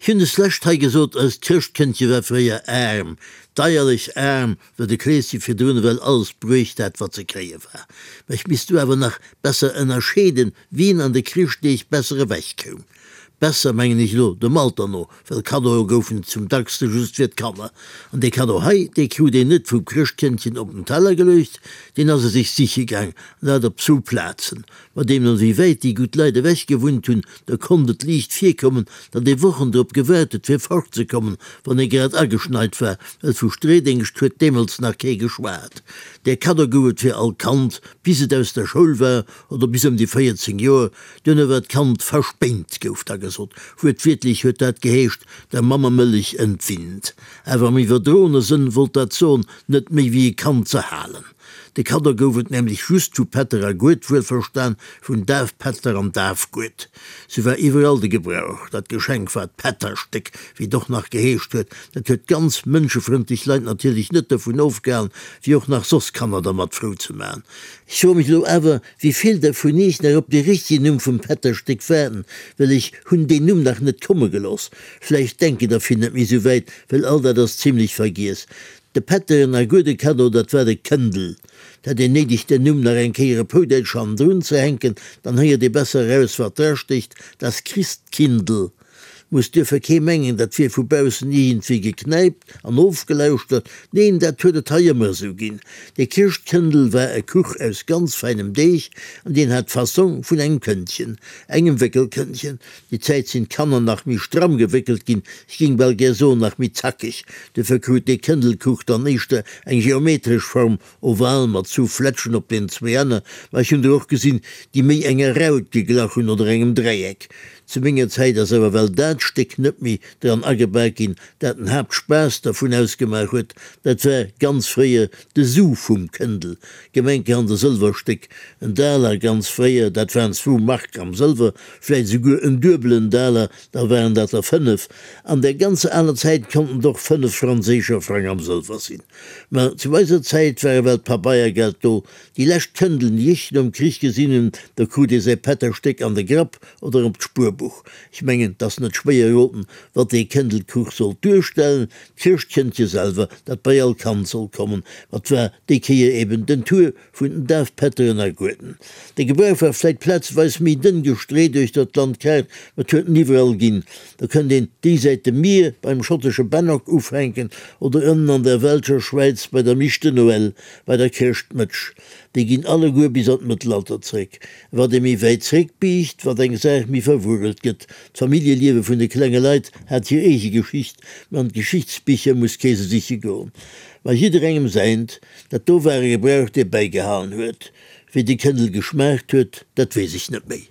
Ech hunn deslescht hei gesot, eist Chrëschtkëndche war fréier aarm, deierlech aarm, well de Kleeschen virdrun ewell alles bruecht hat, wat ze kréie war. Mä ech misst do awer nach besser ënnerscheeden, wien an de Chrëschtdeeg besser ewech koum. Besser, mengen ech elo dem Alter no, well Kaddoe goufen et zum dackste just fir d'Kanner. An dee Kaddo hei, dee krut een net vum Chrëschtkëndchen op den Teller geluecht, deen ass e sech siche gaang, an dat op zwou Plazen. Ma deemno wéi wäit déi gutt Leit ewech gewunnt hunn, da konnt et liicht virkommen, datt ee Wochen drop gewaart huet, fir fortzekommen, wann ee grad ageschneit war, well vu Streedéngscht huet deemools nach kee geschwat. Där Kaddo gouf et fir all Kand, bis et aus der Schoul war oder bis ëm déi 14 Joer. Duerno war d'Kand verspéint, gouf da gesot. Wuertwiertlech huet dat geheescht, der Mammemëllech entwinnt. Awer am iwwerdroene Sënn wollt dat soen, net méi wéi e Kand ze halen. De Kaddo gouf et nämlech just vu Pätter a Gued, wuelverstan vun Dafpätter an Dafgued. Sou war iwwerall de Gebrauch. Dat Geschenk war d'Pätterstéck, wéi et och nach geheescht huet. Dat huet ganz mënschefrëndlech Leit natierlech net dovun ofgehalen, fir och nach soss Kanner dermat frou ze maachen. Ech froe mech elo awer, wéi vill der vun iech nach op dee richtegen Numm vum Pätterstéck waarden, well ech hunn deen Numm nach net komme gelooss. Vläicht denken der vill net méi sou wäit, well all dat ass zimlech vergiess. De Pätteren a gudde Kaddo, dat war de Këndel. 't hätt een néideg den Numm nach eng Kéier op Houdäitsch hannendrun ze hänken, dann héiert ee besser eraus wat drastécht, Das Christkindl. Muss duerfir kee mengen, dat wier vu baussen iergendwéi geknäipt an ofgelauschtert, neen, dat huet et hei ëmmer esou ginn. De Chrëschtkëndel war e Kuch aus ganz feinem Deeg an deen hat d'Fassong vun engem Këndchen, engem Wéckelkëndchen. Déi Zäit sinn d'Kanner nach méi stramm gewéckelt ginn, ech géing bal gär soen nach méi zackeg. Duerfir krut dee Këndelkuch dann éischter eng geometresch Form, oval mat zwou Flätschen op den zwéi Enner, ma ech hunn der och gesinn, déi méi enger Raut geglach hunn oder engem Dräieck. Zu menger Zäit ass awer well dat Stéck net méi dran agebak ginn, dat den Haaptspaass dervun ausgemaach huet, dat war ganz fréier de Su vum Këndel, gemenkerhand e Sëlwerstéck, en Daler ganz fréier, dat waren zwou Mark am Sëlwer, vläit esouguer en duebelen Daler, da waren dat der 5. An där ganzer aler Zäit konnten et och 5 franséischer Frang am Sëlwer sinn. Ma zu eiser Zäit war ewell d'Pabeiergeld do. Déi lescht Këndeln, déi ech nom Krich gesinn hunn, do krut ee säi Pätterstéck an de Grapp oder op d'Spuerbuch. Ech mengen, 't ass net schwéier eroten, wat dee Këndelkuch sollt duerstellen, d'Chrëschtkëndche selwer, dat bei all Kand sollt kommen. Ma 't war déi Kéier eben den Tour vun den Dafpätteren a Gueden. De Gebrauch war vläit plazeweis méi dënn gestreet uechter d'Landkaart, ma 't huet en iwwerall ginn. Do kënnt een déisäit dem Mier beim schottesche Bannock ufänken oder ënnen an der welscher Schwäiz bei der Miche de Noël, bei der Chrëschtmëtsch. Déi ginn alleguer bis an d'Mëttelalter zréck. Wat ee méi wäit zréckbiicht, wat eng Saach méi verwuerelt gëtt. D'Familljeliewe vun de klenge Leit hat hir eege Geschicht, ma an d'Geschichtsbicher muss kee se siche goen. Ma jidderengem säint. Dat do war e Gebrauch, dee bäigehalen huet. Wéi de Këndel geschmaacht huet, dat weess ech net méi.